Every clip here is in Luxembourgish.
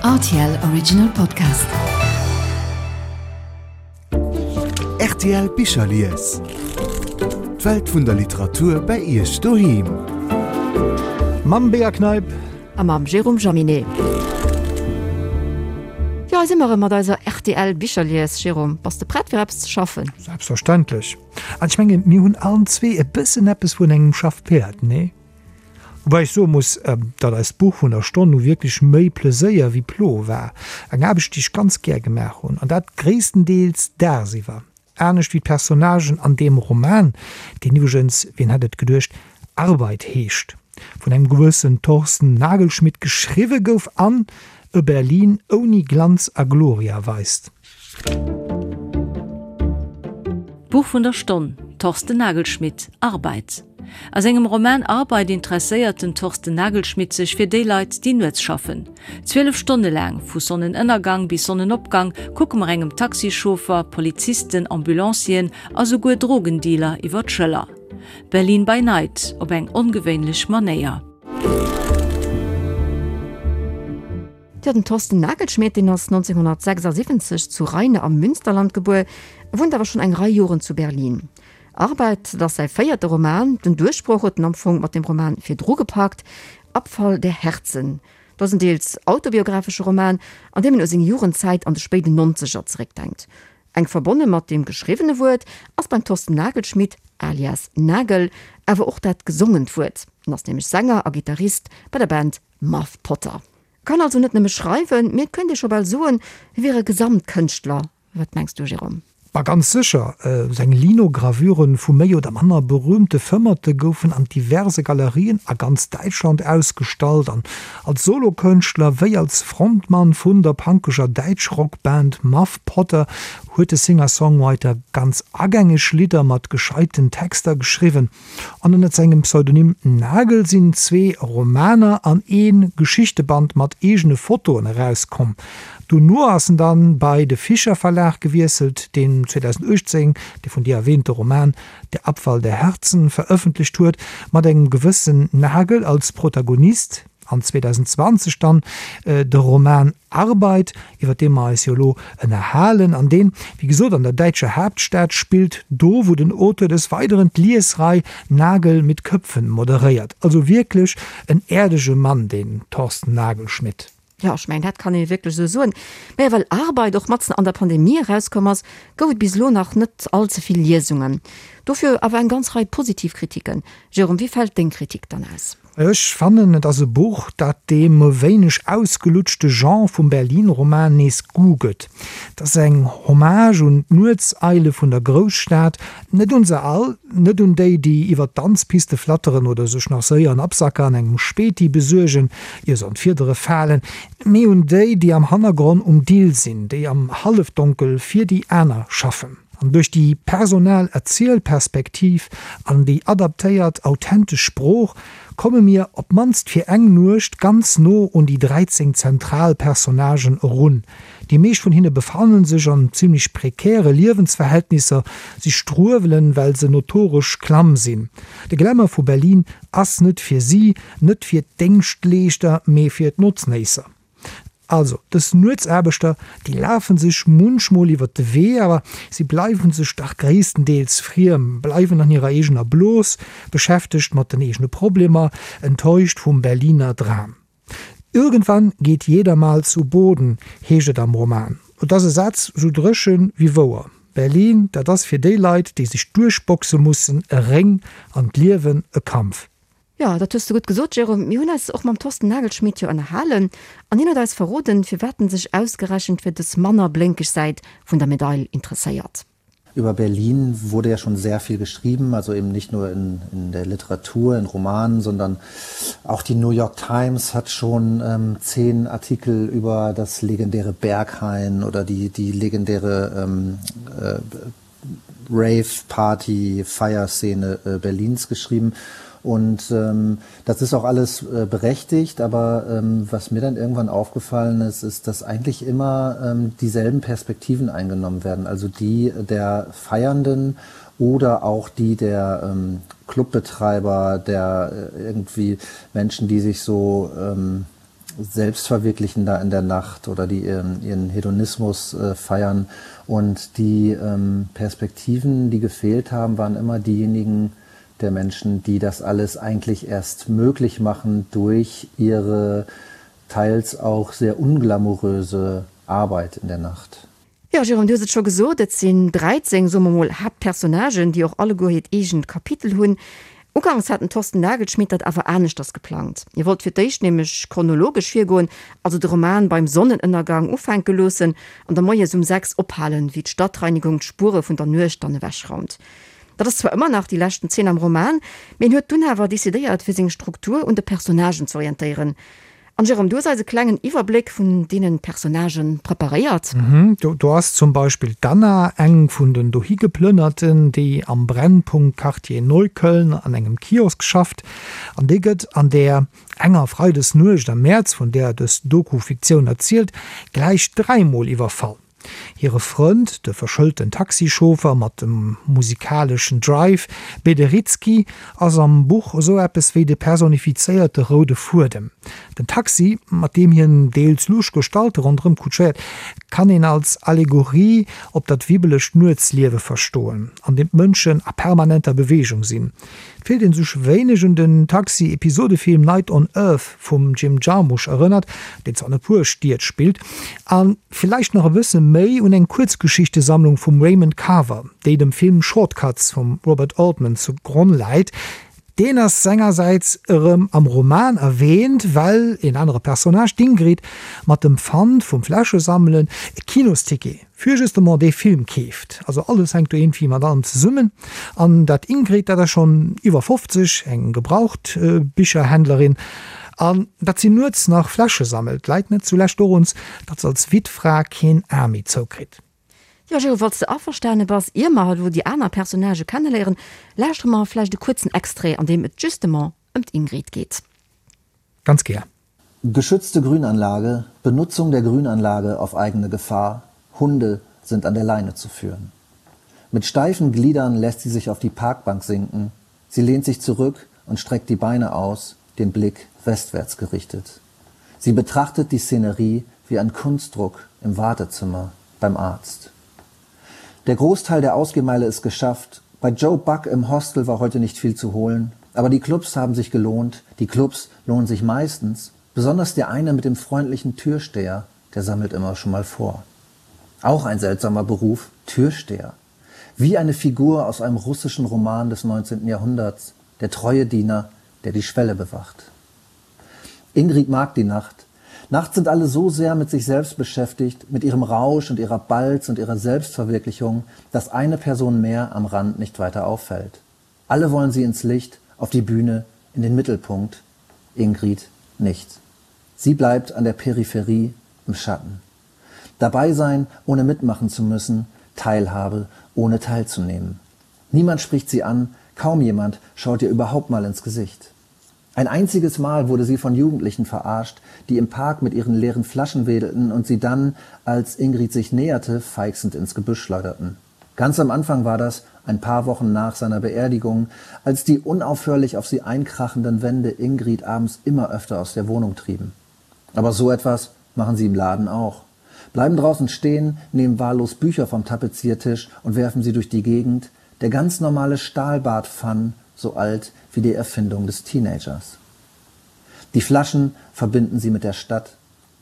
Rtl Original Podcast. Rtl Bicherlies. D'Welt vun der Literatur bei Iech doheem. Mam Bea Kneip. A mam Jérôme Jaminet. Jo, hei si mer erëm mat eiser rtl Bicherlies. Jérôme, bass de prett fir eppes ze schaffen? Selbstverständlech. An ech mengen, mir hunn allen zwee e bëssen eppes vun engem Schaffpäerd, nee? Woubäi ech soe muss, datt eist Buch vun der Stonn nu wierklech méi Pleséier wéi Plo war. Eng Aarbecht, déi ech ganz gär gemaach hunn, an dat gréisstendeels dagsiwwer. Anescht wéi d'Personnagen an deem Roman, deen iwwregens, wien hätt et geduecht, Arbeit heescht, vun engem gewëssen Thorsten Nagelschmidt geschriwwe gouf an e Berlin ouni Glanz a Gloria weist. D'Buch vun der Stonn, Thorsten Nagelschmidt, Arbeit. A sengem Roman Arbeit interesséiert den Thorsten Nagelschmidt sech fir déi Leit, déi nuets schaffen. 12 Stonne laang, vu Sonnenënnergang bis Sonnenopgang, kucke mer engem Taxichauffer, Polizisten, Ambulancieren a souguer Drogendealer iwwer d'Schëller. Berlin by Night op eng ongewéinlech Manéier. Jo, den Thorsten Nagelschmidt, deen ass 1976 zu Rheine am Münsterland gebuer, wunnt awer schonn eng Rei Joren zu Berlin. Arbeit, dat ass säi véierte Roman. Den Duerchbroch huet en am Fong mat dem Roman virdru gepackt, Abfall der Herzen. Dat ass en deels autobiographesche Roman, an deem en u seng Jugendzäit an de spéiden Nonzeger zeréckdenkt. Enk verbonne mat deem geschriwwene Wuert ass beim Thorsten Nagelschmidt, alias Nagel, awer och dat gesongent Wuert. En ass nämlech Sänger a Gittarist bei der Band Muff Potter. Kann also net nëmme schreiwen, mee et könnte ee scho bal soen, hie wier e Gesamtkënschtler. Wat mengs du, Jérôme? Ma ganz sécher! Seng Linogravuren vu méi oder manner berühmte Fëmmerte goufen an diverse Galerien a ganz Däitschland ausgestallt an als Solokënschtler wéi als Frontmann vun der punkeger Däitschrockband Muff Potter huet de Singer-Songwriter ganz agängeg Lidder mat gescheiten Texter geschriwwen. An ënnert sengem Pseudonym Nagel sinn zwee Romaner an ee Geschichteband mat eegene Fotoen erauskomm. Dono ass en dann bei de Fischer Verlag gewiesselt, deen 2018 de vun dir erwähnte Roman Der Abfall der Herzen verëffentlecht huet, mat engem gewëssen Nagel als Protagonist. An 2020 dann de Roman Arbeit, iwwer dee mer eis jo elo ënnerhalen, an deen, wéi gesot, an der däitscher Haaptstad spillt, do wou den Auteur des Weideren d'Liesrei Nagel mit Köpfen moderéiert. Also wierklech en äerdege Mann, deen Thorsten Nagelschmidt. Jo, ech mengen, dat kann ee wierklech esou soen. Mä well Arbeit och matzen an der Pandemie erauskomm ass, gouf et bis elo nach net all ze vill Liesungen. Dofir awer eng ganz Rei positiv Kritiken. Jérôme, wéi fält deng Kritik dann aus? Ech fannen, et ass e Buch, dat deem e wéineg ausgelutschte Genre vum Berlin-Roman nees Goût gëtt. Et ass eng Hommage un d'Nuetseile vun der Grousstad, net un se all, net un déi, déi iwwer d'Danzpiste flatteren oder sech nach séier en Absacker an engem Späti besuergen, ier se an d'Fiedere falen, mee un déi, déi am Hannergronn um Dill sinn, déi am Hallefdonkel fir déi aner schaffen. An duerch déi personal Erzielperspektiv an déi adaptéiert, authentesch Sprooch komme mir op d'mannst fir eng Nuecht ganz no un déi 13 zentral Personnagen erun. Déi meescht vun hinne befannen sech an zimmlech prekäre Liewensverhältnisser, si struewelen, well se notoresch klamm sinn. De Glamour vu Berlin ass net fir si, net fir d'Déngschtleeschter, mee fir d'Notznéisser. Also, dës Nuetsaarbechter, déi lafe sech munchmol iwwer de Wee, awer si bleiwe sech dach gréisstendeels friem, bleiwen an hirer eegener Blos, beschäftegt mat den eegene Problemer, enttäuscht vum Berliner Dram. Irgendwann geht jeder mal zu Boden, heescht et am Roman. Et ass e Saz sou dréchen wéi wouer. Berlin, dat ass fir déi Leit, déi sech duerchboxe mussen, e Réng an d'Liewen e Kampf. Jo, dat hues de gutt gesot, Jérôme. Mir hunn eis och mam Thorsten Nagelschmidt jo ënnerhalen an hien huet eis verroden, firwat en sech ausgerechent fir dës manner blénkeg Säit vun der Medail interesséiert. Über Berlin wurde ja schon sehr viel geschrieben, also eben nicht nur in, in der Literatur, in Romanen, sondern auch die New York Times hat schon ähm, zehn Artikel über das legendäre Berghain oder die, die legendäre ähm, äh, Rave-Party, Feierszene äh, Berlins geschrieben. Und ähm, das ist auch alles äh, berechtigt, aber ähm, was mir dann irgendwann aufgefallen ist, ist, dass eigentlich immer ähm, dieselben Perspektiven eingenommen werden, also die der Feiernden oder auch die der ähm, Clubbetreiber, der äh, irgendwie Menschen, die sich so ähm,. selbst verwirklichen da in der Nacht oder die ihren, ihren Hedonismus äh, feiern. Und die ähm, Perspektiven, die gefehlt haben, waren immer diejenigen der Menschen, die das alles eigentlich erst möglich machen durch ihre teils auch sehr unglamouröse Arbeit in der Nacht. Jo, Jérôme, du hues et scho gesot, et sinn 13, soe mer mol, Haaptpersonnagen, déi och alleguer hiert eegent Kapitel hunn. Uganks hat den Thorsten Nagelschmidt dat awer aneschters geplangt. Hie wollt fir d'éischt nämlech chronologesch virgoen, also de Roman beim Sonnenënnergang ufänke loossen an da moies um 6 ophalen, wéi d'Stadtreinigung d'Spuere vun der Nuecht dann ewechraumt. Dat ass zwar ëmmer nach déi leschten Zeen am Roman, mee en huet dunn awer decidéiert, fir seng Struktur un de Personnagen z'orientéieren. An Jérôme, du hues eis e klengen Iwwerbléck vun deenen Personnagen preparéiert. Do ass zum Beispill d'Anna, eng vun den Dohigeplënnerten, déi am Brennpunkt Quartier Neukölln an engem Kiosk schafft. An déi gëtt an där enger Freidesnuecht am Mäerz, vun där dës Doku-Fiktioun erzielt, gläich dräimol iwwerfall. Hire Frënd, de verschëlten Taxichauffer mat dem musikaleschen Drive, Bederitzky, ass am Buch esou eppes wéi de personifizéierte roude Fuedem. Den Taxi, mat deem hien deels lusch Gestalte ronderëm kutschéiert, kann een als Allegorie op dat wibbelegt Nuetsliewe verstoen, an deem d'Mënschen a permanenter Beweegung sinn. Et fillt een sech wéineg un den Taxi-Episodefilm Night on Earth vum Jim Jarmusch erënnert, deen zwar an e puer Stied spillt, a villäicht nach e bësse méi un eng Kuerzgeschichtesammlung vum Raymond Carver, déi dem Film Short Cuts vum Robert Altman zu Gronn läit. Deen ass sengersäits erëm am Roman erwäänt, well een anere Personnage, d'Ingrid, mat dem Pfand vum Fläschesammelen e Kinosticket fir justement dee Film keeft. Also alles hänkt do iergendwéi mat allem zesummen. An dat Ingrid, dat ass schonn iwwer 50, eng Gebrauchtbicherhändlerin, an datt si nuets nach Fläsche sammelt, läit net zulescht doruns, datt se als Wittfra keen A méi zoukritt. Jo, Gero, falls de averstane bass, ier mer elo déi aner Personnagë kenneléieren, lauschtere mer vläicht e kuerzen Extrait, an deem et justement ëm d'Ingrid geet. Ganz gär. Geschützte Grünanlage, Benutzung der Grünanlage auf eigene Gefahr, Hunde sind an der Leine zu führen. Mit steifen Gliedern lässt sie sich auf die Parkbank sinken. Sie lehnt sich zurück und streckt die Beine aus, den Blick westwärts gerichtet. Sie betrachtet die Szenerie wie ein Kunstdruck im Wartezimmer beim Arzt. Der Großteil der Ausgehmeile ist geschafft. Bei Joe Buck im Hostel war heute nicht viel zu holen. Aber die Clubs haben sich gelohnt. Die Clubs lohnen sich meistens. Besonders der eine mit dem freundlichen Türsteher, der sammelt immer schon mal vor. Auch ein seltsamer Beruf, Türsteher. Wie eine Figur aus einem russischen Roman des 19. Jahrhunderts, der treue Diener, der die Schwelle bewacht. Ingrid mag die Nacht. Nachts sind alle so sehr mit sich selbst beschäftigt, mit ihrem Rausch und ihrer Balz und ihrer Selbstverwirklichung, dass eine Person mehr am Rand nicht weiter auffällt. Alle wollen sie ins Licht, auf die Bühne, in den Mittelpunkt. Ingrid nicht. Sie bleibt an der Peripherie im Schatten. Dabei sein, ohne mitmachen zu müssen, Teilhabe, ohne teilzunehmen. Niemand spricht sie an, kaum jemand schaut ihr überhaupt mal ins Gesicht. Ein einziges Mal wurde sie von Jugendlichen verarscht, die im Park mit ihren leeren Flaschen wedelten und sie dann, als Ingrid sich näherte, feixend ins Gebüsch schleuderten. Ganz am Anfang war das, ein paar Wochen nach seiner Beerdigung, als die unaufhörlich auf sie einkrachenden Wände Ingrid abends immer öfter aus der Wohnung trieben. Aber so etwas machen sie im Laden auch. Bleiben draußen stehen, nehmen wahllos Bücher vom Tapeziertisch und werfen sie durch die Gegend, der ganz normale Stahlbadpfann, so alt wie die Erfindung des Teenagers. Die Flaschen verbinden sie mit der Stadt.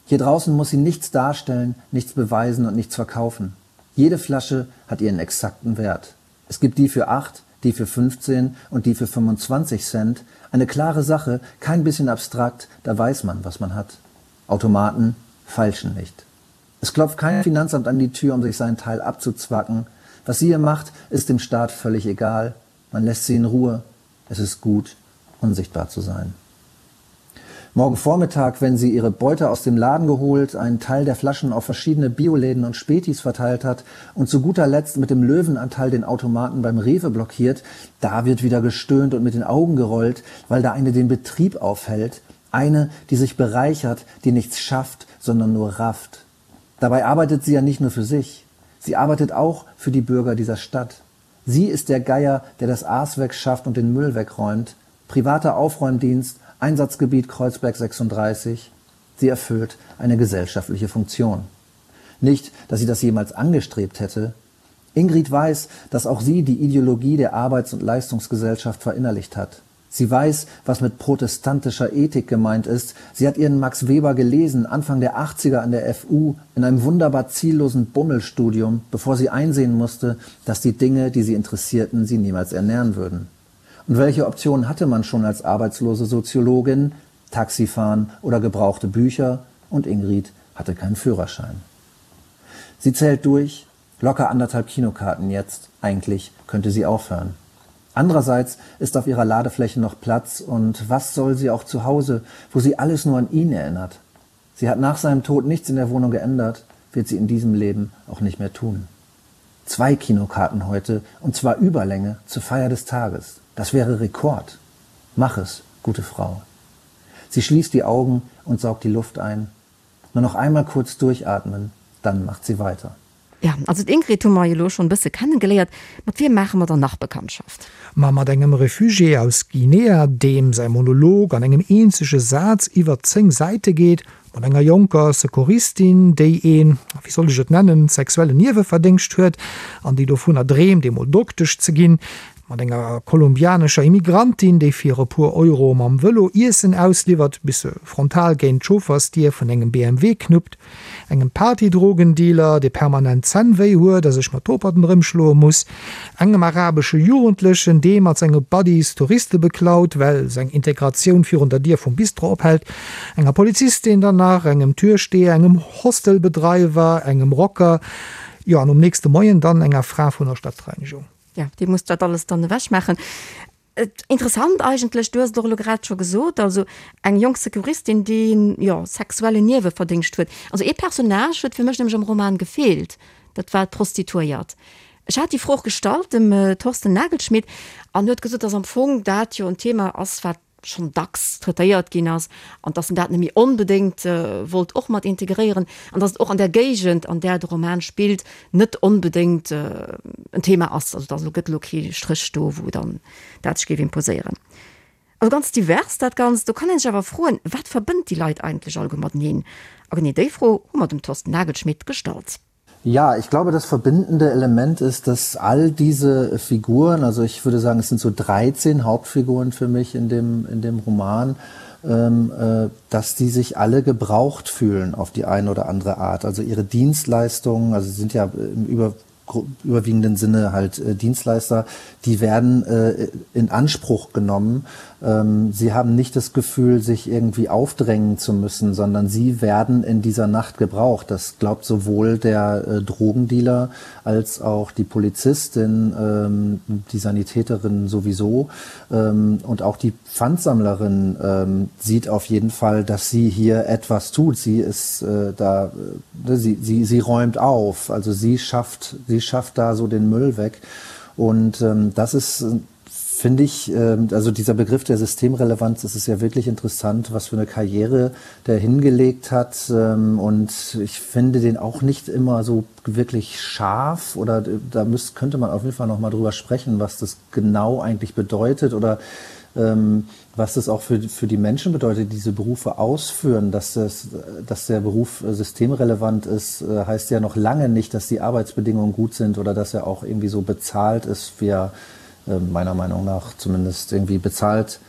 Hier draußen muss sie nichts darstellen, nichts beweisen und nichts verkaufen. Jede Flasche hat ihren exakten Wert. Es gibt die für 8, die für 15 und die für 25 Cent. Eine klare Sache, kein bisschen abstrakt, da weiß man, was man hat. Automaten feilschen nicht. Es klopft kein Finanzamt an die Tür, um sich seinen Teil abzuzwacken. Was sie hier macht, ist dem Staat völlig egal. Man lässt sie in Ruhe. Es ist gut, unsichtbar zu sein. Morgen Vormittag, wenn sie ihre Beute aus dem Laden geholt, einen Teil der Flaschen auf verschiedene Bioläden und Spätis verteilt hat und zu guter Letzt mit dem Löwenanteil den Automaten beim Rewe blockiert, da wird wieder gestöhnt und mit den Augen gerollt, weil da eine den Betrieb aufhält, eine, die sich bereichert, die nichts schafft, sondern nur rafft. Dabei arbeitet sie ja nicht nur für sich. Sie arbeitet auch für die Bürger dieser Stadt. Sie ist der Geier, der das Aas wegschafft und den Müll wegräumt. Privater Aufräumdienst, Einsatzgebiet Kreuzberg 36. Sie erfüllt eine gesellschaftliche Funktion. Nicht, dass sie das jemals angestrebt hätte. Ingrid weiß, dass auch sie die Ideologie der Arbeits- und Leistungsgesellschaft verinnerlicht hat. Sie weiß, was mit protestantischer Ethik gemeint ist. Sie hat ihren Max Weber gelesen, Anfang der 80er an der FU, in einem wunderbar ziellosen Bummelstudium, bevor sie einsehen musste, dass die Dinge, die sie interessierten, sie niemals ernähren würden. Und welche Optionen hatte man schon als arbeitslose Soziologin? Taxifahren oder gebrauchte Bücher? Und Ingrid hatte keinen Führerschein. Sie zählt durch, locker anderthalb Kinokarten jetzt, eigentlich könnte sie aufhören. Andererseits ist auf ihrer Ladefläche noch Platz und was soll sie auch zu Hause, wo sie alles nur an ihn erinnert? Sie hat nach seinem Tod nichts in der Wohnung geändert, wird sie in diesem Leben auch nicht mehr tun. Zwei Kinokarten heute und zwar Überlänge zur Feier des Tages. Das wäre Rekord. Mach es, gute Frau. Sie schließt die Augen und saugt die Luft ein. Nur noch einmal kurz durchatmen, dann macht sie weiter. Ja, also d'Ingrid hu mer jo elo schonn e bësse kennegeléiert. Mat wiem maache mer dann nach Bekanntschaft? Ma mat engem Refugié aus Guinea, deem säi Monolog an engem eenzege Saz iwwer 10 Säite geet, mat enger jonker Secouristin, déi een, wéi soll ech et nennen, sexuellen Nieweverdéngscht huet an déi dovunner dreemt, eemol Doktesch ze ginn, mat enger kolumbianescher Immigrantin, déi fir e puer Euro mam Vëlo Iessen ausliwwert, bis se frontal géint d'Chauffersdier vun engem BMW knuppt, engem Partydrogendealer, dee permanent Zänn wéi huet a sech mat Toperten erëmschloe muss, engem arabesche Jugendlechen, dee mat senge Buddies Touriste beklaut, well seng Integratioun virun der Dier vum Bistro ophält, enger Polizistin dann nach, engem Türsteher, engem Hostelbedreiwer, engem Rocker, jo an um nächste Moien dann enger Fra vun der Stadtreinigung. Jo, déi muss dat alles dann ewech maachen. Interessant eigentlech, du hues et och elo grad scho gesot, also eng jonk Securistin, déi, jo, sexuellen Nieweverdéngscht huet. Also ee Personnage huet fir mech nämlech am Roman gefeelt, dat war d'Prostituéiert. Ech hat déi Fro och gestallt dem Thorsten Nagelschmidt an huet gesot, dass am Fong dat jo en Thema ass, wat schonn dacks traitéiert ginn ass an dass en dat net méi onbedéngt wollt och mat integréieren an dass et och an där Géigend, an där de Roman spillt, net onbedéngt en Thema ass. Also dass elo gëtt elo kee Stréch do, wou dann dat sech géif imposéieren. Also ganz divers dat Ganzt. Do kann ee sech awer froen, Wat verbënnt déi Leit eigentlech alleguer mateneen? A genee déi Fro hu mer dem Thorsten Nagelschmidt gestallt. Ja, ich glaube, das verbindende Element ist, dass all diese Figuren, also ich würde sagen, es sind so 13 Hauptfiguren für mich in dem, in dem Roman, ähm, äh, dass die sich alle gebraucht fühlen auf die eine oder andere Art. Also ihre Dienstleistungen, also sie sind ja im Über überwiegenden Sinne halt äh, Dienstleister, die werden äh, in Anspruch genommen. Ähm, sie haben nicht das Gefühl, sich irgendwie aufdrängen zu müssen, sondern sie werden in dieser Nacht gebraucht. Das glaubt sowohl der äh, Drogendealer als auch die Polizistin, ähm, die Sanitäterin sowieso ähm, und auch die Pfandsammlerin ähm, sieht auf jeden Fall, dass sie hier etwas tut. Sie ist äh, da, äh, sie, sie, sie räumt auf, also sie schafft, sie schafft da so den Müll weg. Und ähm, das ist finde ich, ähm, also dieser Begriff der Systemrelevanz, das ist ja wirklich interessant, was für eine Karriere der hingelegt hat. Ähm, und ich finde den auch nicht immer so wirklich scharf oder äh, da müsst, könnte man auf jeden Fall noch mal drüber sprechen, was das genau eigentlich bedeutet oder ähm, was das auch für, für die Menschen bedeutet, die diese Berufe ausführen, dass, das, dass der Beruf äh, systemrelevant ist, äh, heißt ja noch lange nicht, dass die Arbeitsbedingungen gut sind oder dass er auch irgendwie so bezahlt ist, wie er äh, meiner Meinung nach zumindest irgendwie bezahlt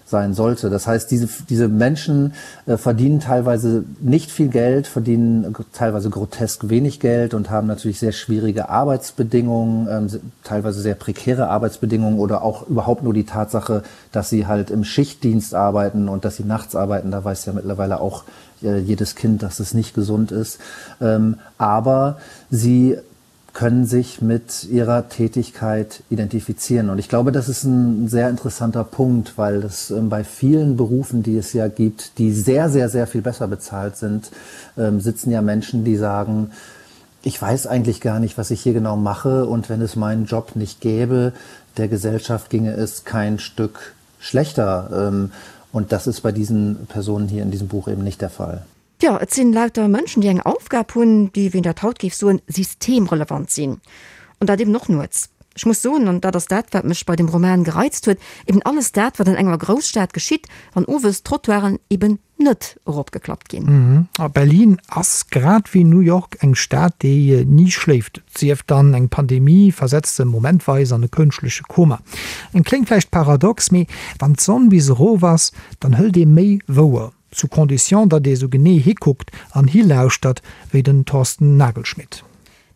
sein sollte. Das heißt, diese, diese Menschen äh, verdienen teilweise nicht viel Geld, verdienen teilweise grotesk wenig Geld und haben natürlich sehr schwierige Arbeitsbedingungen, ähm, teilweise sehr prekäre Arbeitsbedingungen oder auch überhaupt nur die Tatsache, dass sie halt im Schichtdienst arbeiten und dass sie nachts arbeiten. Da weiß ja mittlerweile auch äh, jedes Kind, dass es nicht gesund ist. Ähm, aber sie können sich mit ihrer Tätigkeit identifizieren. Und ich glaube, das ist ein sehr interessanter Punkt, weil es ähm, bei vielen Berufen, die es ja gibt, die sehr, sehr, sehr viel besser bezahlt sind, ähm, sitzen ja Menschen, die sagen, ich weiß eigentlich gar nicht, was ich hier genau mache und wenn es meinen Job nicht gäbe, der Gesellschaft ginge es kein Stück schlechter. Ähm, und das ist bei diesen Personen hier in diesem Buch eben nicht der Fall. Jo, et sinn lauter Mënschen, déi eng Aufgab hunn, déi, wéi een dat haut géif soen, systemrelevant sinn. An dat eben och nuets. Ech muss soen, an dat ass dat, wat mech bei dem Roman gereizt huet, eben alles dat, wat an enger Grousstad geschitt, wann owes d'Trottoiren eben net eropgeklappt ginn. A Berlin ass, grad wéi New York, eng Stad, déi ni schléift. Et sief dann, eng Pandemie versetzt se momentweis an e kënschtleche Koma. Et kléngt vläicht paradox, mee wann d'Sonn bis erof ass, dann hëlt ee méi wouer, sous condition, datt ee sou genee hikuckt an hilauschtert wéi den Thorsten Nagelschmidt.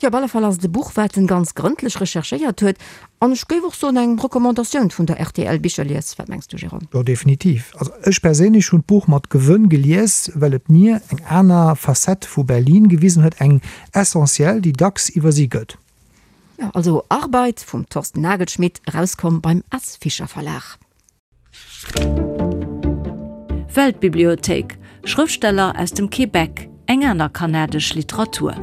Jo, op alle Fall ass et e Buch, wat en ganz grëndlech recherchéiert huet, an ech géif och soen, eng Recommandatioun vun der rtl Bicherlies. Wat mengs du, Jérôme? Jo, definitiv. Also ech perséinlech hunn d'Buch mat Gewënn gelies, well et mir eng aner Facette vu Berlin gewisen huet, eng essentiell, déi dacks iwwersi gëtt. Jo, also Arbeit vum Thorsten Nagelschmidt, erauskomm beim S. Fischer Verlag. Weltbibliothéik, Schrëftsteller aus dem Québec, eng aner kanadesch Literatur.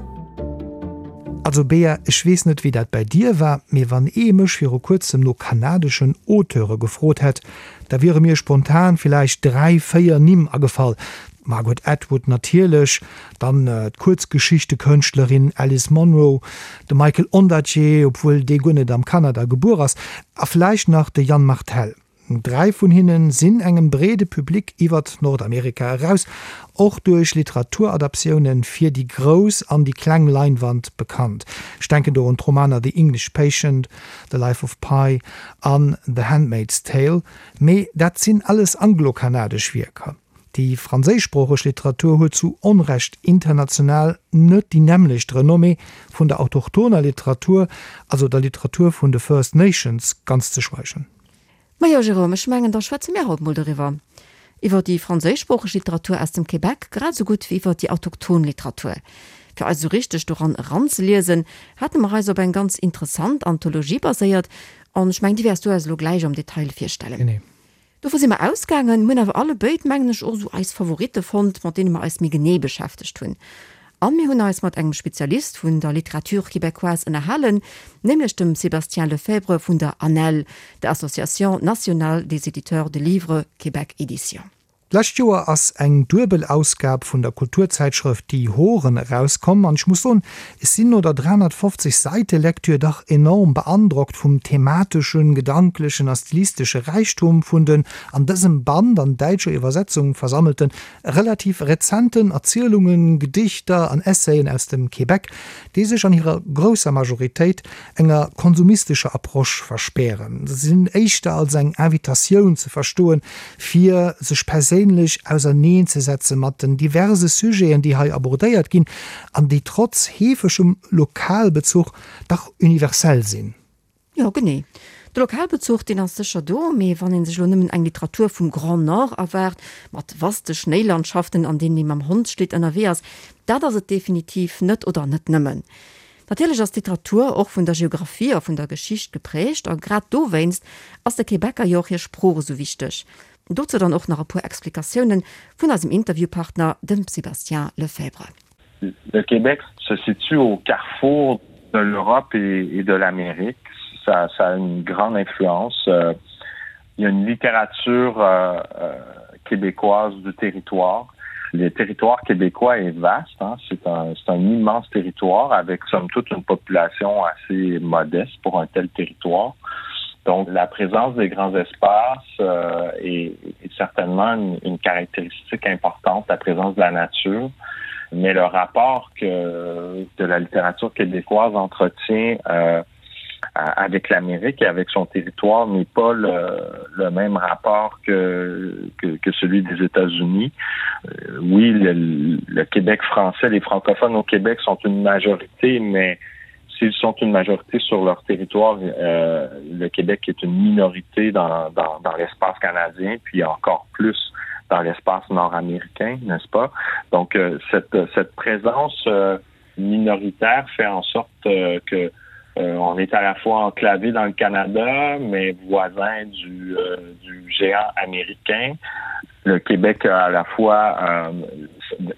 Also Bea, ech weess net wéi dat bäi dir war, mee wann ee mech viru kuerzem no kanadeschen Auteure gefrot hätt, da wiere mir spontan villäicht 3, 4 Nimm agefall, d'Margaret Atwood natierlech, dann d'Kuerzgeschichtekënschtlerin Alice Munro, de Michael Ondaatje, obwuel dee guer net am Kanada gebuer ass, a vläicht nach de Yann Martel. Dräi vun hinne sinn engem breede Public iwwert Nordamerika eraus, och duerch Literaturadaptioune fir déi grouss an déi kleng Leinwand bekannt. Ech denken do un d'Romaner The English Patient, The Life of Pi an The Handmaid's Tale, mee dat sinn alles anglo-kanadesch Wierker. Déi franséischsproocheg Literatur huet zu Onrecht international net déi nämmlecht Renommée, vun der autochtoner Literatur, also der Literatur vun de First Nations, ganz ze schweigen. Majo, Jérôme, ech mengen, da schwätze mir haut mol doriwwer. Iwwer déi franséischsproocheg Literatur aus dem Québec grad esou gutt wéi iwwer déi autochton Literatur. Fir eis esou richteg doran eranzeliesen, hate mer eis op eng ganz interessant Anthologie baséiert, an ech mengen, déi wäers du eis elo gläich am Detail virstellen. Genee. Dovu si mer ausgaangen, hunn awer allebéid, mengen ech, och esou eis Favoritte fonnt, mat deene mer eis méi genee beschäftegt hunn. A mir hunn eis mat engem Spezialist vun der Littérature québécoise ënnerhalen, nämlech dem Sébastien Lefebvre vun der ANEL, der Association nationale des éditeurs de livres, Québec Éditions. D'lescht Joer ass eng duebel Ausgab vun der Kulturzäitschrëft Die Horen erauskomm an ech muss soen, ech sinn no der 350 Säite Lektür dach enorm beandrockt vum themateschen, gedanklechen a stilistesche Räichtum vun den an dësem Band an däitscher Iwwersetzung versammelten, relativ rezenten Erzielungen, Gedichter an Essayen aus dem Québec, déi sech an hirer grousser Majoritéit enger konsumistescher Approche verspären. Se sinn éischter als eng Invitatioun ze verstoen, fir sech perséinlech auserneenzesetze mat den diverse Sujeten, déi hei abordéiert ginn an déi trotz heefegem Lokalbezuch dach universell sinn. Jo, genee. De Lokalbezuch, deen ass sécher do, mee wann ee sech elo nëmmen eng Literatur vum Grand Nord erwaart, mat vaste Schnéilandschaften, an deenen ee mam Hondsschlitt ënnerwee ass, dat ass et definitiv net oder net nëmmen. Natierlech ass d'Literatur och vun der Geographie a vun der Geschicht geprägt a grad dowéinst ass de Québecer jo och hir Sprooch esou wichteg. Dozou dann och nach e puer Explikatiounen vun eisem Interviewpartner, dem Sébastien Lefebvre. Le Québec se situe au carrefour de l'Europe et de l'Amérique. Ça, ça a une grande influence. Euh, il y a une littérature euh, euh, québécoise du territoire. Le territoire québécois est vaste. C'est un, un immense territoire avec somme toute une population assez modeste pour un tel territoire. Donc la présence des grands espaces euh, est, est certainement une, une caractéristique importante, la présence de la nature. Mais le rapport que, que la littérature québécoise entretient euh, avec l'Amérique et avec son territoire n'est pas le, le même rapport que, que, que celui des États-Unis. Euh, oui, le, le Québec français, les francophones au Québec sont une majorité, mais s'ils sont une majorité sur leur territoire, euh, le Québec est une minorité dans, dans, dans l'espace canadien, puis encore plus dans l'espace nord-américain, n'est-ce pas? Donc euh, cette, cette présence euh, minoritaire fait en sorte euh, que euh, on est à la fois enclavé dans le Canada, mais voisin du, euh, du géant américain. Le Québec a à la fois euh,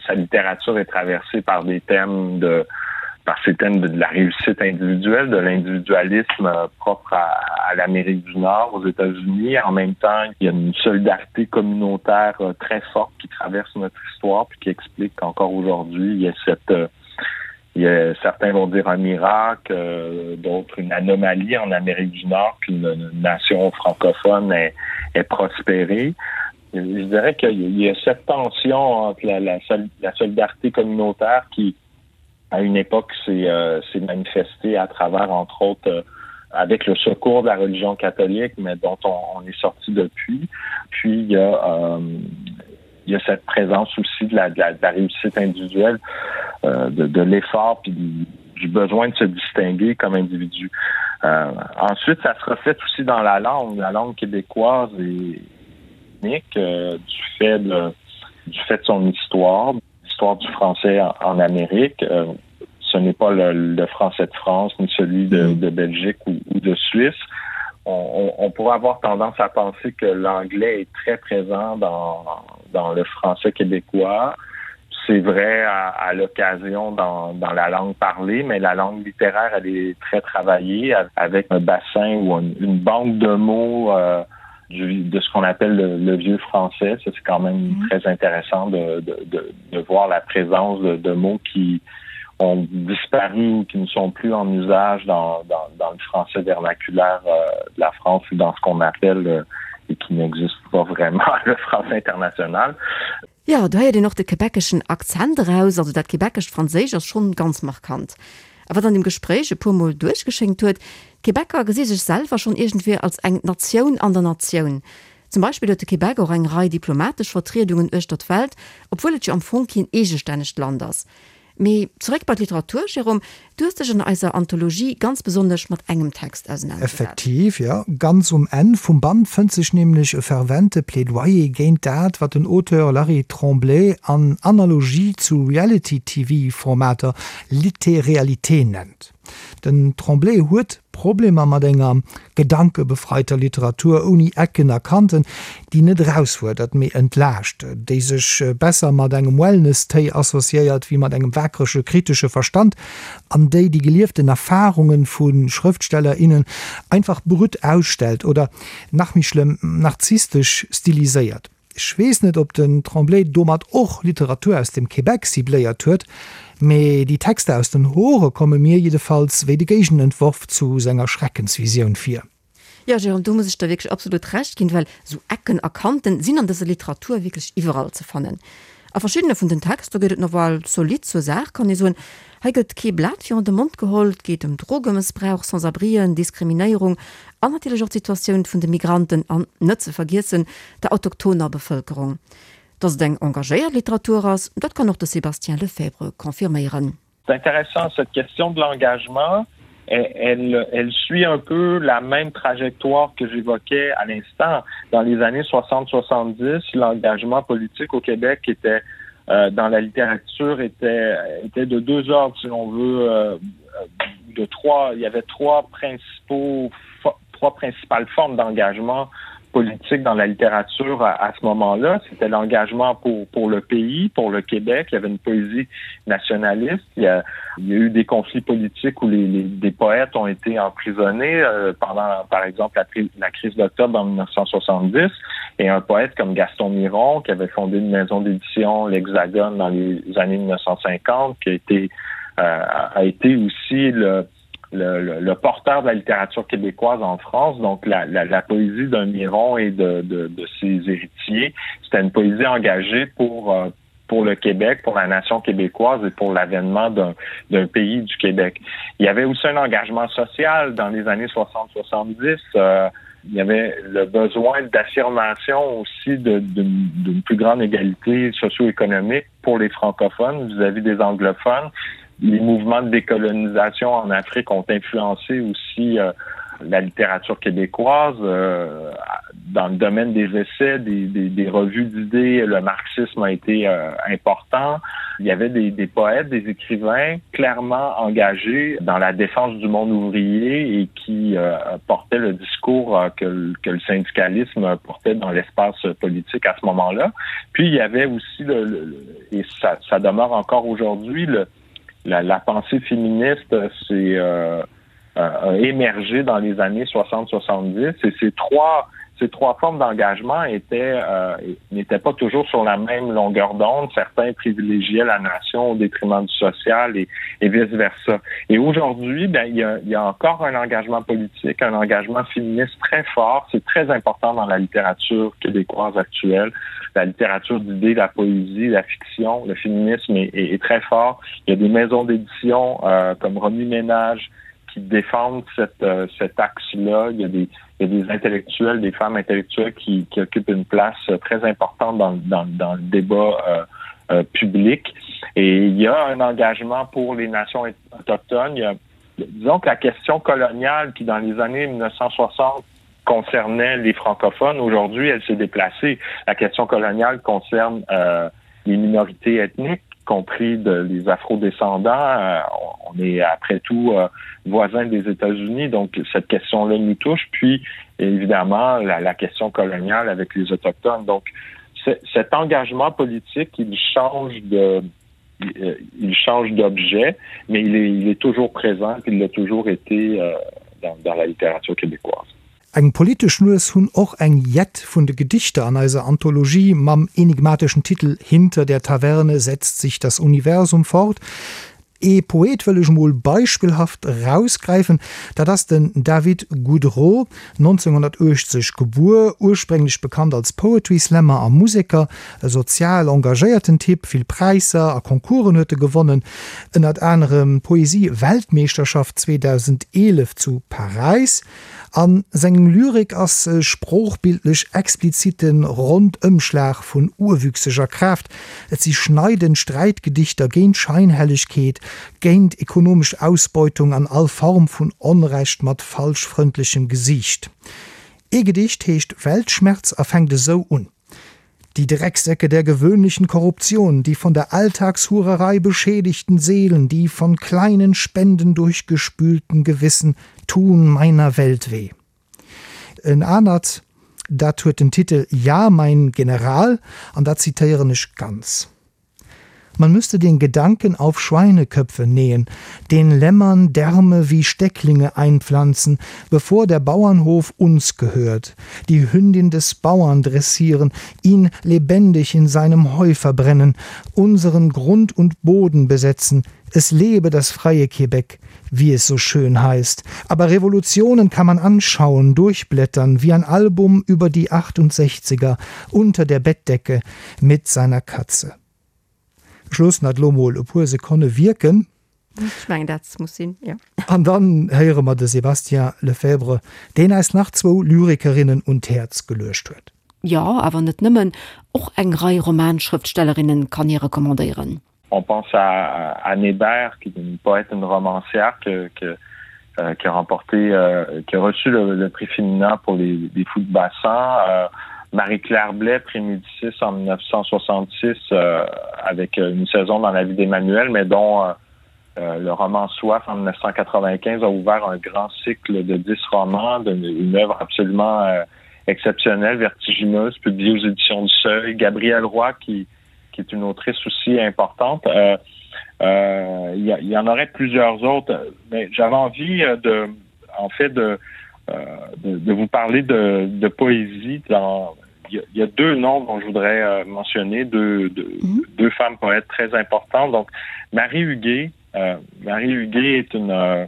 sa littérature est traversée par des thèmes de par ces thèmes de, de la réussite individuelle, de l'individualisme euh, propre à, à l'Amérique du Nord, aux États-Unis. En même temps, il y a une solidarité communautaire euh, très forte qui traverse notre histoire puis qui explique qu'encore aujourd'hui, il y a cette euh, Il y a, certains vont dire un miracle, euh, d'autres une anomalie en Amérique du Nord qu'une nation francophone ait, ait prospéré. Je dirais qu'il y a cette tension entre la, la, la solidarité communautaire qui, à une époque, s'est euh, manifestée à travers, entre autres, euh, avec le secours de la religion catholique, mais dont on, on est sorti depuis. Puis il y a, euh, il y a cette présence aussi de la, de la, de la réussite individuelle, euh, de, de l'effort puis du, du besoin de se distinguer comme individu. Euh, ensuite, ça se reflète aussi dans la langue. La langue québécoise est unique euh, du fait de, du fait de son histoire, l'histoire du français en, en Amérique. Euh, ce n'est pas le, le français de France ni celui de, mm. de Belgique ou, ou de Suisse. On, on, on pourrait avoir tendance à penser que l'anglais est très présent dans, dans le français québécois. C'est vrai à, à l'occasion dans, dans la langue parlée, mais la langue littéraire elle est très travaillée avec un bassin ou une, une banque de mots euh, du, de ce qu'on appelle le, le vieux français. C'est quand même mm -hmm. très intéressant de, de, de, de voir la présence de, de mots qui, ont disparu ou qui ne sont plus en usage dans, dans, dans le français vernaculaire euh, de la France ou dans ce qu'on appelle euh, et qui n'existe pas vraiment le français international. Jo, do héiert een och de quebeceschen Akzent eraus, also dat quebecescht Franséisch ass schonn ganz markant. A wat an dem Gespréich e puer Mol duerchgeschéngt huet, d'Quebecer gesi sech selwer schonn iergendwéi als eng Natioun an der Natioun. Zum Beispill huet de Québec och eng Rei diplomatesch Vertriedungen uechter d'Welt, obwuel et jo am Fong keen eegestännegt Land ass. Mee zeréck bei d'Literatur, Jérôme, du hues dech an eiser Anthologie ganz besonnesch mat engem Text ausenanergesat. Effektiv, jo. Ganz um Enn vum Band fënnt sech nämlech e fervente Plädoyer géint dat, wat den Auteur Larry Tremblay an Analogie zu Reality-TV-Formater Littéréalité nennt. Den Tremblay huet Problemer mat enger gedankebefreiter Literatur ouni Ecken a Kanten, déi net erausfuerdert, mee entlaascht, déi sech besser mat engem Wellness-Téi associéiert wéi mat engem waakrege kritesche Verstand an déi déi gelieften Erfarunge vu Schrëftsteller, innen einfach brut ausstellt oder, nach méi schlëmm, narzisstesch stiliséiert. Ech weess net, ob den Tremblay domat och Literatur aus dem Québec cibléiert huet, mee déi Texter aus den Hore komme mir jiddefalls wéi de Géigenentworf zu senger Schreckensvisioun vir. Jo, Jérôme, do muss ech der wierklech absolut Recht ginn, well esou Ecken a Kanten sinn an dëser Literatur wierklech iwwerall ze fannen. A verschiddene vun den Texter geet et nawell zolidd zur Saach, kann ee soen. Hei gëtt kee Blat virun de Mond geholl, et geet ëm Drogemëssbrauch, Sans-abrien, Diskriminéierung an natierlech och d'Situatioun vun de Migranten an, net ze vergiessen, der autochtoner Bevëlkerung. Datt et eng engagéiert Literatur ass, dat kann och de Sébastien Lefebvre confirméieren. C'est intéressant cette question de l'engagement elle, elle suit un peu la même trajectoire que j'évoquais à l'instant. Dans les années 60-70, l'engagement politique au Québec était euh, dans la littérature était, était de deux ordres si l'on veut euh, de trois il y avait trois principaux trois principales formes d'engagement politique dans la littérature à, à ce moment-là. C'était l'engagement pour, pour le pays, pour le Québec. Il y avait une poésie nationaliste. Il y a, il y a eu des conflits politiques où les, les, des poètes ont été emprisonnés euh, pendant, par exemple, la, la crise d'octobre en 1970. Et un poète comme Gaston Miron, qui avait fondé une maison d'édition, l'Hexagone, dans les années 1950, qui a été, euh, a été aussi le, le, le, le porteur de la littérature québécoise en France, donc la, la, la poésie d'un Miron et de, de, de ses héritiers, c'était une poésie engagée pour, euh, pour le Québec, pour la nation québécoise et pour l'avènement d'un pays du Québec. Il y avait aussi un engagement social dans les années 60-70. Euh, il y avait le besoin d'affirmation aussi d'une plus grande égalité socio-économique pour les francophones vis-à-vis -vis des anglophones les mouvements de décolonisation en Afrique ont influencé aussi euh, la littérature québécoise euh, dans le domaine des essais, des, des, des revues d'idées, le marxisme a été euh, important. Il y avait des, des poètes, des écrivains clairement engagés dans la défense du monde ouvrier et qui euh, portaient le discours euh, que, que le syndicalisme portait dans l'espace politique à ce moment-là. Puis il y avait aussi le, le, et ça, ça demeure encore aujourd'hui le, la, la pensée féministe s'est euh, euh, émergée dans les années 60-70 et ces trois. ces trois formes d'engagement étaient euh, n'étaient pas toujours sur la même longueur d'onde. Certains privilégiaient la nation au détriment du social et, et vice-versa. Et aujourd'hui, ben il y a, il y a encore un engagement politique, un engagement féministe très fort. C'est très important dans la littérature québécoise actuelle, la littérature d'idées, la poésie, la fiction, le féminisme est, est, est très fort. Il y a des maisons d'édition euh, comme Remue Ménage, qui défendent cette, euh, cet axe-là. Il y a des, il y a des intellectuels, des femmes intellectuelles qui, qui occupent une place euh, très importante dans, dans, dans le débat euh, euh, public. Et il y a un engagement pour les nations autochtones. Il y a, disons que la question coloniale qui, dans les années 1960, concernait les francophones, aujourd'hui, elle s'est déplacée. La question coloniale concerne euh, les minorités ethniques compris de, les afrodescendants. Euh, on est après tout euh, voisin des États-Unis, donc cette question-là nous touche. Puis, évidemment, la, la question coloniale avec les Autochtones. Donc, cet engagement politique, il change de euh, il change d'objet, mais il est, il est toujours présent, puis il l'a toujours été euh, dans, dans la littérature québécoise. Eng politesch Nues hunn och eng Jett vun de Gedichter an eiser Anthologie mam enigmateschen Titel Hinter der Taverne setzt sich das Universum fort. Ee Poet wëll ech mol beispillhaft erausgräifen, dat ass den David Goudreault, 1980 gebuer, ursprénglech bekannt als Poetry Slammer a Museker, e sozial engagéierten Typ, vill Präisser a Concoursen huet e gewonnen, ënnert anerem d'Poesie-Weltmeeschterschaft 2011 zu Paräis. A sengem Lyrik ass e sproochbildlech explizite Rondëmschlag vun urwüchseger Kraaft. Et si schneidend Sträitgedichter géint Scheinhellegkeet, géint ekonomesch Ausbeutung an all Form vun Onrecht mat falschfrëndlechem Gesiicht. Ee Gedicht heescht Weltschmerz a fänkt esou un. Die Drecksäcke der gewöhnlichen Korruption, die von der Alltagshurerei beschädigten Seelen, die von kleinen Spenden durchgespülten Gewissen tun meiner Welt weh. En anert, dat huet den Titel Ja, mein General an dat zitéieren ech ganz. Man müsste den Gedanken auf Schweineköpfe nähen, den Lämmern Därme wie Stecklinge einpflanzen, bevor der Bauernhof uns gehört, die Hündin des Bauern dressieren, ihn lebendig in seinem Heu verbrennen, unseren Grund und Boden besetzen, es lebe das freie Quebec, wie es so schön heißt. Aber Revolutionen kann man anschauen, durchblättern, wie ein Album über die 68er unter der Bettdecke mit seiner Katze. Ech loossen dat elo mol e puer Sekonne wierken. Ech mengen, dat muss sinn, jo. An dann héiere mer de Sébastien Lefebvre, deen eis nach zwou Lyrikerinnen un d'Häerz geluecht huet. Jo, awer net nëmmen, och eng Rei Romanschrëftstellerinnen kann hie recommandéieren. On pense à Anne Hébert, qui est une poète, une romancière que, que, euh, qui a remporté euh, qui a reçu le, le prix féminin pour les, les fous de bassin. Euh, Marie-Claire Blais, prix Médicis en 1966 euh, avec euh, une saison dans la vie d'Emmanuel, mais dont euh, euh, le roman Soif en 1995 a ouvert un grand cycle de dix romans, une œuvre absolument euh, exceptionnelle, vertigineuse, publiée aux éditions du Seuil. Gabriel Roy qui, qui est une autrice aussi importante. Euh, euh, il euh, y, y en aurait plusieurs autres, mais j'avais envie euh, de en fait de, euh, de, de vous parler de, de poésie dans il y, y a deux noms dont je voudrais euh, mentionner deux, deux, mm -hmm. deux femmes poètes très importantes donc Marie Huguet euh, Marie Huguet est une euh,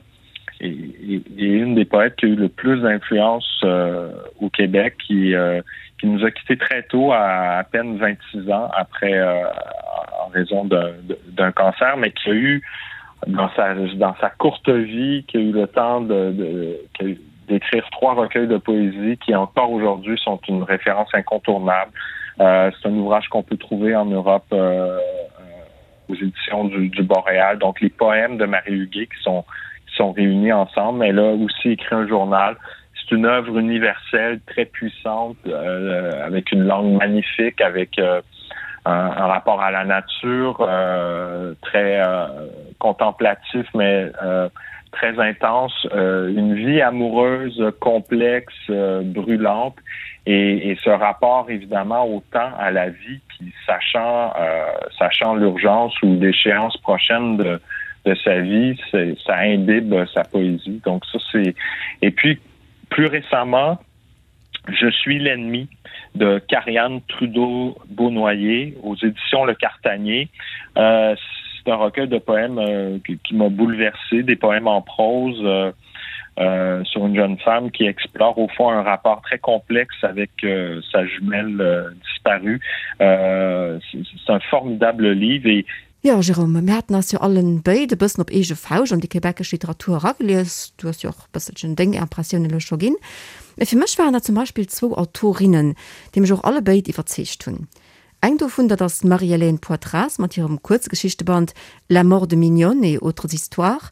est, est une des poètes qui a eu le plus d'influence euh, au Québec qui euh, qui nous a quitté très tôt à à peine 26 ans après euh, en raison d'un cancer mais qui a eu dans sa dans sa courte vie qui a eu le temps de, de d'écrire trois recueils de poésie qui encore aujourd'hui sont une référence incontournable euh, c'est un ouvrage qu'on peut trouver en Europe euh, euh, aux éditions du, du Boréal donc les poèmes de Marie Huguet qui sont qui sont réunis ensemble elle a aussi écrit un journal c'est une œuvre universelle très puissante euh, avec une langue magnifique avec euh, un, un rapport à la nature euh, très euh, contemplatif mais euh, très intense euh, une vie amoureuse complexe euh, brûlante et, et ce rapport évidemment autant à la vie qui sachant euh, sachant l'urgence ou l'échéance prochaine de de sa vie ça imbibe sa poésie donc ça c'est et puis plus récemment. Je suis l'ennemi de Carianne Trudeau-Beaunoyer aux éditions Le Cartanier. Euh, c'est un recueil de poèmes euh, qui, qui m'a bouleversé, des poèmes en prose euh, euh, sur une jeune femme qui explore au fond un rapport très complexe avec euh, sa jumelle euh, disparue. Euh, c'est un formidable livre et Jo, Jérôme, mir haten eis jo allen béid e bëssen op eege Fauscht an déi québecesch Literatur eragelies. Du hues jo och e bësselchen deng Impressiounen elo scho ginn. Mee fir mech waren dat zum Beispill zwou Autorinnen, déi mech och alle béid iwwerzeegt hunn. Eng dovun, dat ass d'Marie-Hélène Poitras mat hirem Kuerzgeschichteband La mort de Mignonne et autres histoires.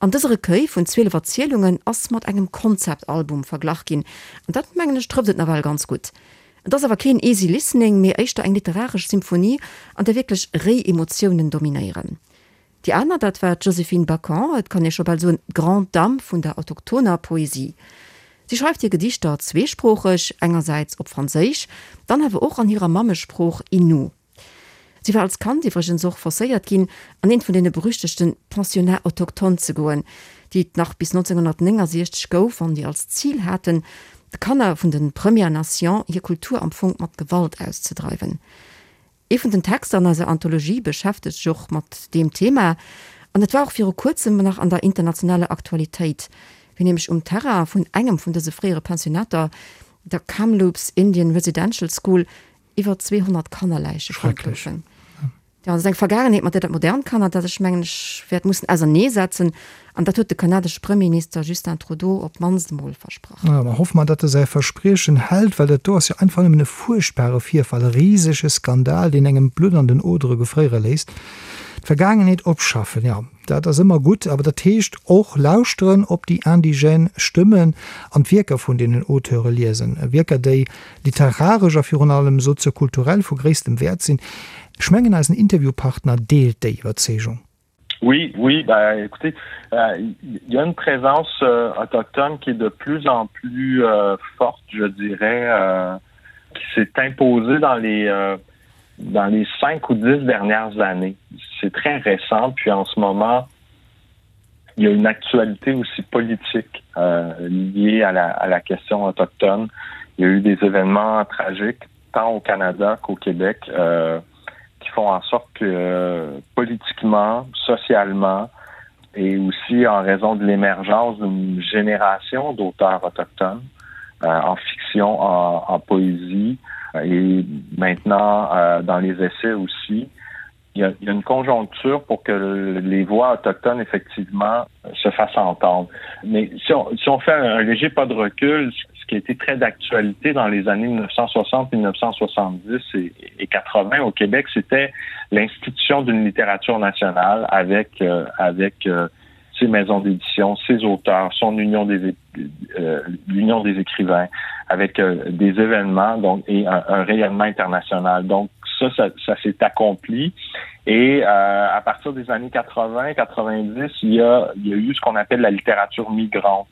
An dëse Recueil vun 12 Erzielungen ass mat engem Concept-Album verglach ginn, an dat, mengen ech, trëfft et nawell ganz gutt. Et ass awer keen easy listening, mee éischter eng literaresch Symphonie, an där wierklech réi Emotiounen dominéieren. Déi aner, dat war d'Joséphine Bacon, et kann ee scho bal soen, d'Grande Dame vun der autochtoner Poesie. Si schreift hir Gedichter zweesproocheg, engersäits op Franséisch, dann awer och an hirer Mammesprooch Innu. Si war als Kand iwwregens och forcéiert ginn, an eent vun deene berüchtegte Pensionnats autochtones ze goen, déi et nach bis 1969 gouf an déi als Zil haten, de Kanner vun de Premières Nations hir Kultur am Fong mat Gewalt auszedreiwen. Ee vun den Texter an eiser Anthologie beschäftegt sech och mat deem Thema an et war och viru kuerzem nach an der internationaler Aktualitéit, wéi nämlech um Terrain vun engem vun dëse fréiere Pensionater, der Kamloops Indian Residential School, Iwwer 200 Kannerläiche fonnt goufen. Jo, dat ass eng Vergaangenheet, mat där dat modernt Kanada sech, mengen ech, wäert mussen auserneesetzen. An dat huet de kanadesche Premierminister Justin Trudeau op d'mannst emol versprach. Jo, da hoffe mer, datt e säi Verspriechen hält, well dat do ass jo einfach nëmmen e fuerchtbare Virfall, e risege Skandal, deen engem d'Blutt an den Odere gefréiere léisst. D'Vergaangenheet opschaffen, jo. Dat ass ëmmer gutt, awer dat heescht och lauschteren op déi indigène Stëmmen an d'Wierker vun deenen Auteure liesen, Wierker, déi literaresch a virun allem soziokulturell vu gréisstem Wäert sinn. Ech mengen, eisen Interviewpartner deelt déi Iwwerzeegung. Oui, oui, ben, écoutez, euh, il y a une présence euh, autochtone qui est de plus en plus euh, forte, je dirais, euh, qui s'est imposée dans les, euh, dans les cinq ou dix dernières années. C'est très récent, puis en ce moment, il y a une actualité aussi politique euh, liée à la, à la question autochtone. Il y a eu des événements tragiques, tant au Canada qu'au Québec, euh, qui font en sorte que euh, politiquement, socialement, et aussi en raison de l'émergence d'une génération d'auteurs autochtones euh, en fiction, en, en poésie euh, et maintenant euh, dans les essais aussi, il y, a, il y a une conjoncture pour que les voix autochtones effectivement se fassent entendre. Mais si on, si on fait un, un léger pas de recul, ce qui a été très d'actualité dans les années 1960, 1970 et, et 80 au Québec, c'était l'institution d'une littérature nationale avec, euh, avec euh, ses maisons d'édition, ses auteurs, son union des, euh, l'union des écrivains, avec euh, des événements donc, et un, un rayonnement international. Donc ça, ça, ça s'est accompli. Et euh, à partir des années 80, 90, il y a, il y a eu ce qu'on appelle la littérature migrante.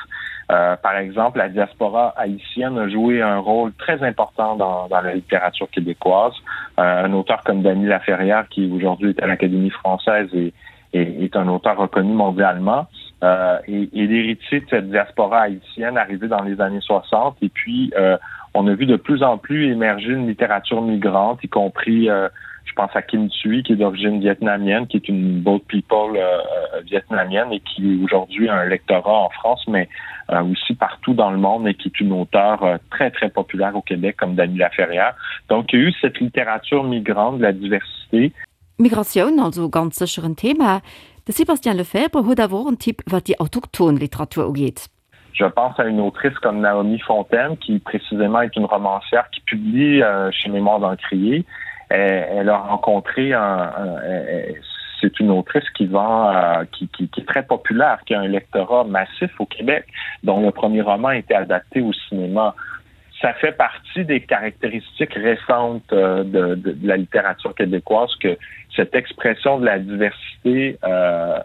Euh, par exemple, la diaspora haïtienne a joué un rôle très important dans, dans la littérature québécoise. Euh, un auteur comme Dany Laferrière, qui aujourd'hui est à l'Académie française et, et est un auteur reconnu mondialement, euh, et, et l'héritier de cette diaspora haïtienne arrivée dans les années 60. Et puis, euh, on a vu de plus en plus émerger une littérature migrante, y compris euh, je pense à Kim Thuy, qui est d'origine vietnamienne, qui est une boat people euh, euh, vietnamienne et qui aujourd'hui a un lectorat en France, mais euh, aussi partout dans le monde et qui est une auteure euh, très, très populaire au Québec, comme Dany Laferrière. Donc, il y a eu cette littérature migrante de la diversité. Migratioun also ganz sécher en Thema. De Sébastien Lefebvre huet awer och en Tipp, wat déi autochthon Literatur ugeet. Je pense à une autrice comme Naomi Fontaine, qui précisément est une romancière qui publie euh, chez Mémoire d'Encrier. Elle, elle a rencontré un, un, c'est une autrice qui vend euh, qui, qui, qui est très populaire, qui a un lectorat massif au Québec, dont le premier roman a été adapté au cinéma. Ça fait partie des caractéristiques récentes euh, de, de, de la littérature québécoise que cette expression de la diversité euh,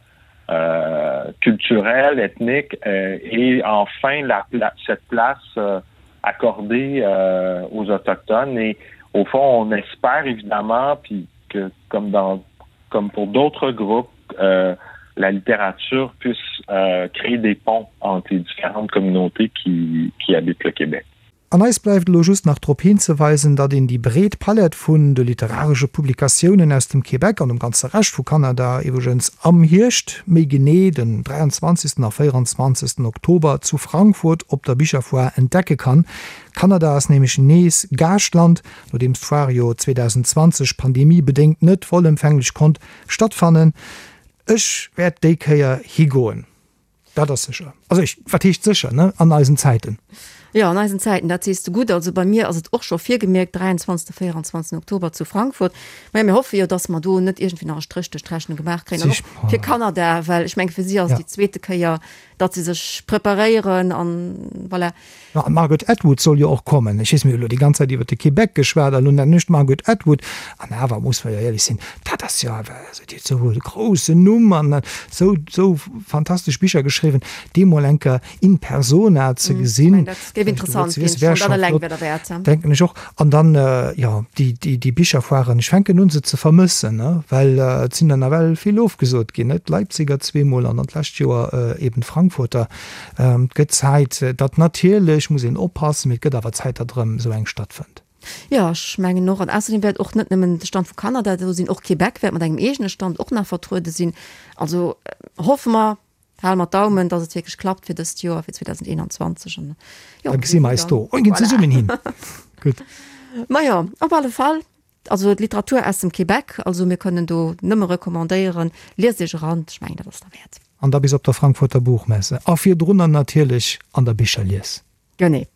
euh, culturelle, ethnique euh, et enfin la, la, cette place euh, accordée euh, aux autochtones et au fond on espère évidemment puis que comme dans comme pour d'autres groupes euh, la littérature puisse euh, créer des ponts entre les différentes communautés qui, qui habitent le Québec. An eis bleift elo just nach drop hinzeweisen, datt een déi breet Palett vun de literaresche Publikatiounen aus dem Québec an dem ganze Rescht vu Kanada iwwregens am Hierscht, méi genee den 23. a 24. Oktober zu Frankfurt op der Bicherfoire entdecke kann. Kanada ass nämlech nees Gaaschtland, nodeems d'Foire jo 2020 pandemiebedéngt net vollëmfänglech konnt stattfannen. Ech wäert déi Kéier higoen. Dat ass sécher. Also ech, wat heescht sécher, ne? An eisen Zäiten. Jo, an eisen Zäiten, dat sees de gutt. Also bei mir ass et och scho virgemierkt, 23., 24. Oktober zu Frankfurt. Maja, mir hoffe jo, datt mer do net iergendwéi nach e Stréch duerch d'Rechnung gemaach kréien. An och fir Kanada, well ech menge fir si ass et déi zweete Kéier, datt si sech preparéieren an voilà. Jo, an d'Margaret Atwood soll jo och kommen. Ech weess, mir hu lo déi ganz Zäit iwwer de Québec geschwat a lo nennen ech d'Margaret Atwood. An awer muss mer jo éierlech sinn, dat ass jo awer, also déi huet esou e groussen Numm an esou, esou fantastesch Bicher geschriwwen, déi mol eng Kéier in persona ze gesinn, dat géif interessant ginn, schonn dat eleng wär derwäert. Denken ech och. An dann, jo, déi, déi, déi Bicherfoiren, ech fänken un se ze vermëssen, ne, well et sinn der nawell vill ofgesot ginn, ne, d'Leipziger zweemol an dann d'lescht Joer eben d'Frankfurter. Et gëtt Zäit, datt natierlech muss een oppassen, mee et gëtt awer Zäit, datt erëm esou eng stattfënnt. Jo, ech mengen och. An ausserdeem wäert och net nëmmen de Stand vu Kanada do sinn, och Québec wäert mat engem eegene Stand och nach vertruede sinn. Also hoffe mer, hale mer d'Daumen, datt et wierklech klappt fir dëst Joer, fir 2021. An jo, da gesi mer eis do. Mir ginn zesummen hin. Gutt. Majo, op alle Fall. Also d'Literatur aus dem Québec, also mir kënnen do nëmme recommandéieren, liest iech eran, ech mengen dat ass derwäert. An da bis op der Frankfurter Buchmesse a virdrunner natierlech an der Bicherlies. Genee.